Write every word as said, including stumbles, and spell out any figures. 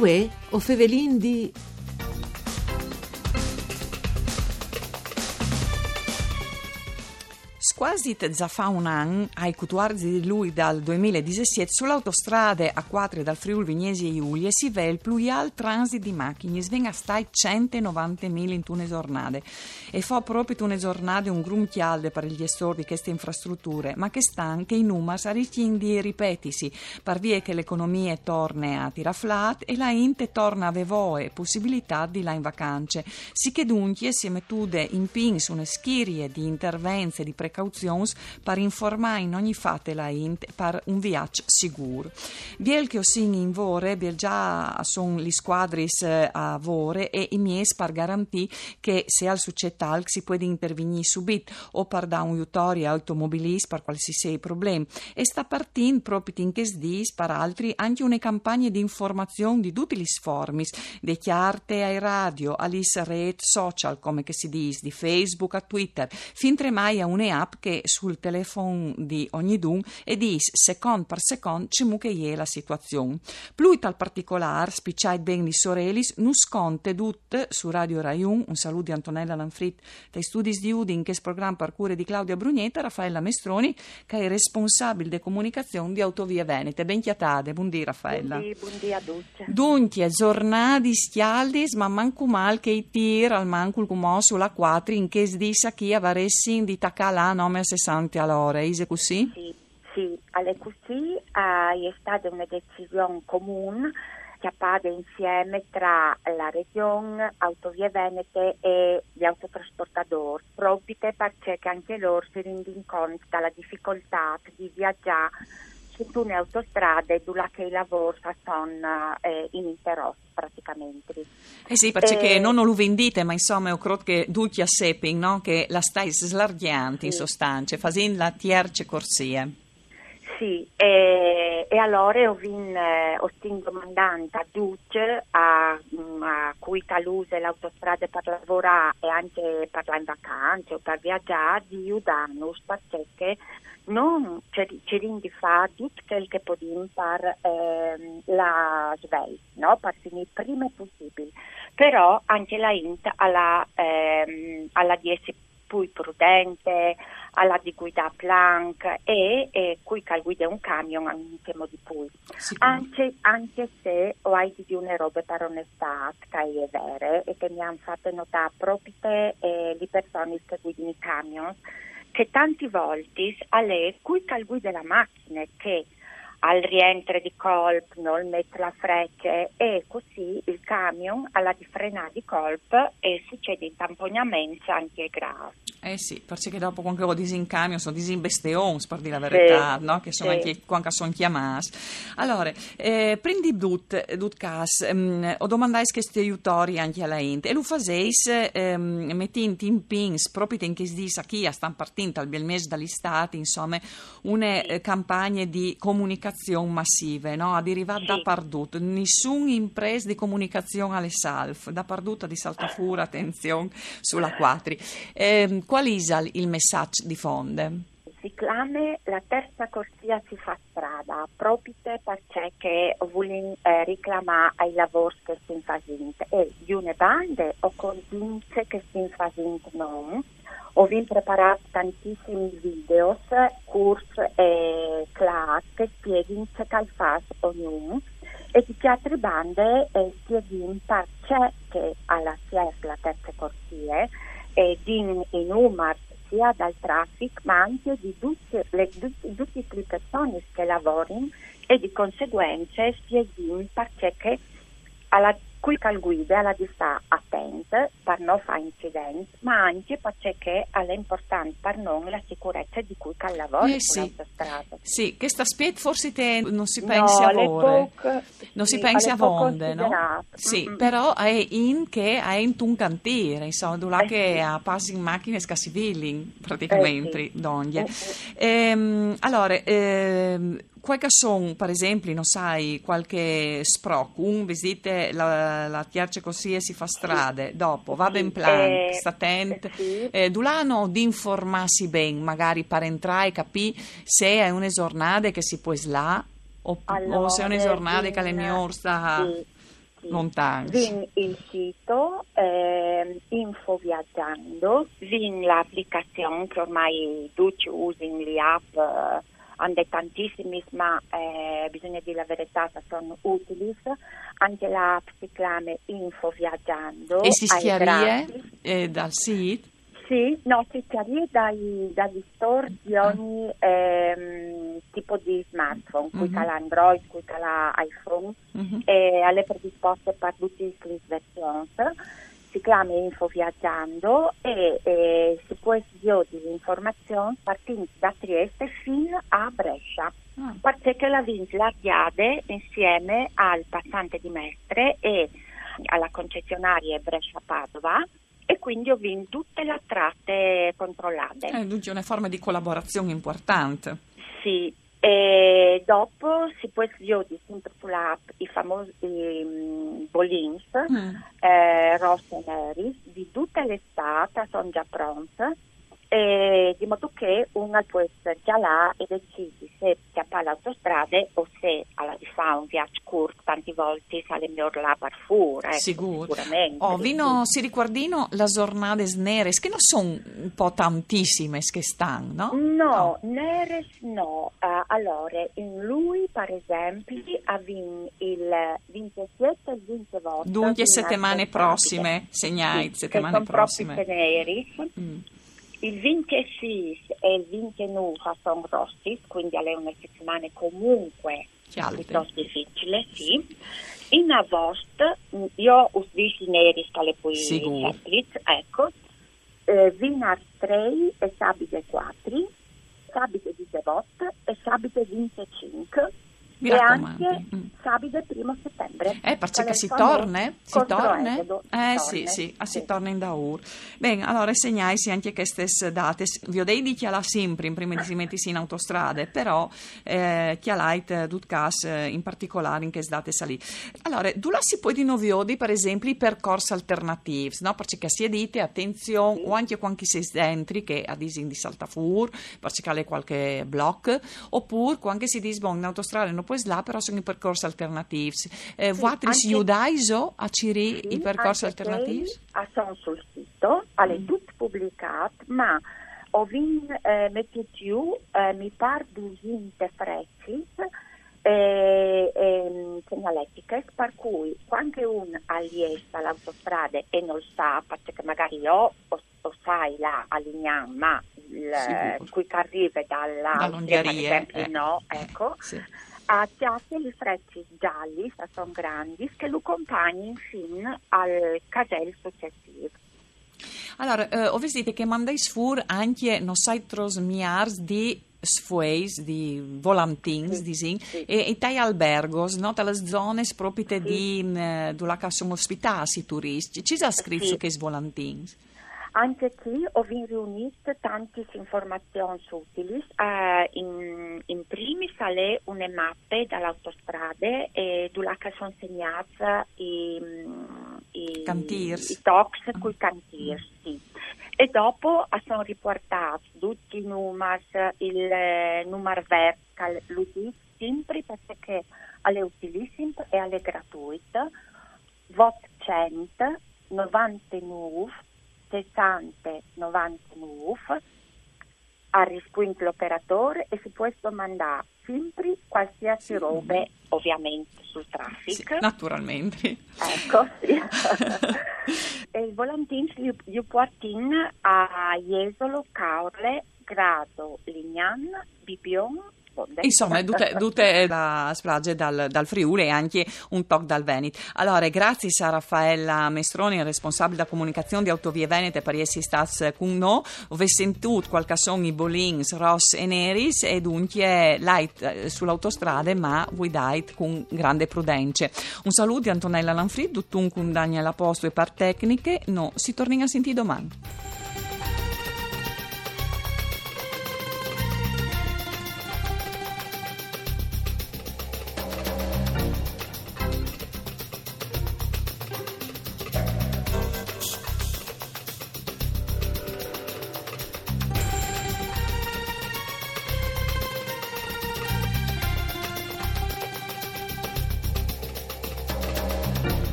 Uè, o fevelin di Scuasi za fa un an, ai cutuarzi di lui dal duemiladisesiet, su l'autostrade A cuatri dal Friul Vignesie Julie si vè il plui alt transit di machinis, ven a stai centenovantemila intune zornade. E fo propit une zornade un grum cjalde par il gjestor di cheste infrastruture, ma chest an chei numars a riscjin di ripetisi, par vie che l'economie torne a tirà flat e la int e torne a vê voie e pussibilitât di lâ in vacance. Sichè duncje si è metude in pîts une schirie di intervents e di precauzions par informâ in ogni fat la int par un viaç sigûr. Biel che o sin in vore, biel za a son lis scuadris, eh, a vore e i mieçs par garantî che se al sucêt alc si puedi intervignî subit o par dâ un jutori ai automobilists par cualsisei problem. E sta partint propit in chescj dîs, par altri, ancje une campagne di informazion di dutis lis formis, de cjarte ae radio, a lis rêts social, come che si dîs, di Facebook a Twitter, fintremai a une app che sul telefon di ognidun e dîs secont par secont cemût che e je la situazion. Plui tal particolâr, spiçait ben lis orelis, nus conte dut su Radio Rai Un. Un salût di Antonella Lanfrit dai studis di Udin, in chest program par cure di Claudia Brugnetta, Raffaella Mestroni, che e je responsabil de comunicazion di Autovie Venete. Ben cjatade, bundì Raffaella. Bundì, bundì a ducj. Duncje, zornadis cjaldis, ma mancul mâl che i tîr, almancul cumò su la cuatri, in chescj dîs achì a varessin di tacâ a lâ nome a sessante a l'ore, ise cussì? Sì, sì, al è cussì, eh, e je stade une decision comun cjapade insieme tra la Region, Autovie Venete e i autotrasportadôrs, propite parcè che ancje lôr si rindin cont da la dificoltât di viazâ su une autostrade dulà che i lavôrs a son, eh, ininterrots praticamentri. Eh sì, parcè che nô no lu vin dite, ma insome, o crôt che ducj a sepin, no? Che la stais slargjant, in sostance, fasint la tierce corsie. Sì, e, e alore o vin, eh, o stin domandant a ducj, a, mm, a cui che al use la autostrade par lavorâ e ancje par lâ in vacance o par viazâ, di judânus, parcè che nô cirìn di fâ dut chel che podìn par, ehm, lâ svelt, no? Par finî prime pussibil. Però ancje la int al à, ehm, al à di jessi plui prudente, al à di guidâ planc e, e cui che al guide un camion ancjemò di plui. Sicûr. Ancje, ancje se o ai di dî une robe par onestât, che e je vere e che mi àn fate notâ propite, eh, lis personis che a guidin i camions, che tantis voltis al è cui che al guide la machine che al rientre di colp, nol met la frece e cussì il camion al à di frenâ di colp e sucedin tampognaments ancje grâfs. Eh sì, parcè che dopo cuant che o disin camions, o disin besteons, par dî la veretât, no? Che a son ancje, cuant che a son clamâts. Alore, eh, prin di dut, dut câs, mm, o domandais chest jutori ancje a la int, e lu faseis, ehm, metint in pîts, propit in chescj dîs achì, a stan partint al biel mês dal Istât, insome, une, eh, campagne di comunicazion massive, no? A derivâ dapardut, nissun imprest di comunicazion al è salf, dapardut a di saltâ fûr, atenzion, su la cuatri. Ehm, cuâl isal il messaç di fonde? Si clame La terza corsia si fa strada, propite parcè che o vulìn, eh, riclamâ ai lavôrs che o stin fasint. E di une bande o contìn ce che o stin fasint nô, o vin preparât tantissims videos, curts e clârs che a spieghin ce che al fâs ognun, e di chê altre bande, eh, o spieghin parcè che al à siert la terce corsie, e din i numars sia dal trafic, ma ancje di dutis lis, dut-, dutis lis personis che a lavorin, e di conseguence o spieghin parcè che al à, cui che al guide al à di stâ atent par no fâ incidents, ma ancje parcè che al è impuartant par nô la sicurece di cui che al lavore su la autostrade. Eh sì. Sì, chest aspiet forsit no si pense avonde. No si pense avonde, no? Sì, però al è int che al è intun cantîr, insome, dulà che a passin machinis che a svielin praticamentri dongje. Ehm, alore, ehm, cuâi che a son, par esempli, no sai, cualchi sproc, un, vês dit, la, la tierce corsie si fa strade, dopo, va ben planc, sta atent, eh, dulà a àn di informâsi ben, magari par entrâ e capî se e je une zornade che si pues lâ, o, o se e je une zornade che al è miôr stâ... Sì. Lontans. Vin il sito, ehm, Info Viaggiando, vin la aplicazion che ormai ducj usin, li app, eh, ande tantissimis, ma, eh, bisogna dir la veretà, che son utilis. Ancje la app si clame Info Viaggiando. E si scjarie, eh, dal sit? Sì, no, si scjarie dai, dagli store di ogni, ehm, tipo di smartphone, cui che al à Android, cui che al à iPhone, e al è predispost par dutis lis versions. Si clame Info Viaggiando e, e si pues viodi lis informazions partint da Trieste fin a Brescia. Parcè che la vin slargjade insieme al passante di Mestre e a la concessionarie Brescia-Padova, e quindi o vin dute la trate controlade. Eh, duncje une forme di colaborazion impuartante. Sì, e dopo si pues viodi simpri su la app i famosi, mm, bolins, eh, ros e neris, di dute la stât, a son za pronts, e di modo che un al pues cjalâ e decidi se cjapâ la autostrade o se al à di fâ un viaç curt, tantis voltis al è miôr lâ par fûr, eco, sigûr. Sigurementri. Oh, vino, si ricuardino las zornades neris, che no son un po' tantissimes chest an, no? No, neris no. Eh, alore, in Lui, par esempli, o vin il vincjesiet e il vincjevot. Duncje, setemane prossime, segnait, sì, setemane prossime. Che son propit neris. Il vincjesîs e il vincjenûf a son rossis, quindi al è une setemane comuncue piutost dificile, sì. In Avost, mm, jo us dîs i neris, che al è plui sempliç, eco, eh, vinars trê e sabide cuatri, sabide disevot e sabide vincjecinc. Mi racomandi. E ancje sabide primo setembre. Eh, parcè che si torne? Si torne? Eh, sì, sì, si torne indaûr. Ben, alore segnaitsi ancje chestis datis. Viodêt di cjalâ simpri, prime di si metisi in autostrade, però, eh, cjalait, eh, dut câs, eh, in particolâr in chestis datis li. Alore, dulà si pues di no viodi, par esempli, i percors alternatîfs, no? Parcè che si è dite, atenzion, o ancje cuant che si è dentri, che a disin di saltâ fûr, parcè che al è cualchi bloc, opûr cuant che si dîs, bon, in autostrade no pues lâ, però a son i percors alternatîfs. Eh, vualtris judaiso a cirî i percors alternatîfs? A son sul sito, al è dut publicât, ma o vin, eh, metût jù, eh, mi pâr dusinte frecis, eh, ehm, segnaletichis, par cui cuant che un al jes da la autostrade e nol sa, parcè che magari jo o o sai lâ a Lignan, ma il, cui che al rive da la Austrie, par esempli, no, eco, al cjate lis frecis gjalis, a son grandis, che lu compagnin fin al casel sucessîf. Alore, eh, o vês dit che mandais fûr ancje no sai tros miârs di sfueis, di volantins, disìn, e, e tai albergos, no? Tai lis zonis propit di, mm, dulà che a son ospitâts i turiscj. Ce si à scrit su chescj volantins? Ancje chi o vin riunît tantis informazions utilis. Eh, in, in primis al è une mape da la autostrade, eh, dulà che a son segnâts i, mm, i cantîrs, i tocs cui cantîrs, sì. E dopo a son ripuartâts ducj i numars, il, eh, numar vert, che lu dîs simpri parcè che al è utilissim e al è gratuit, votcent novantenûf sessante novantenûf, al rispuint l'operadôr e si pues domandâ simpri cualsisei robe, ovviamente, sul trafic. Sì, naturalmentri. Eco, sì. E i volantins ju, ju puartin a Jesolo, Caorle, Grado, Lignan, Bibion, Insome, dute, dute la splaze dal, dal Friûl e ancje un toc dal Venit. Alore, graciis a Raffaella Mestroni, responsabil da comunicazion di Autovie Venete, par jessi stâts cun nô. O vês sintût cuâi che a son i bolins ros e neris e duncje lait, eh, su la autostrade, ma vuidait cun grande prudence. Un salût di Antonella Lanfrid, duncje cun Daniela Postu e par tecniche. Nô si tornìn a sintî doman.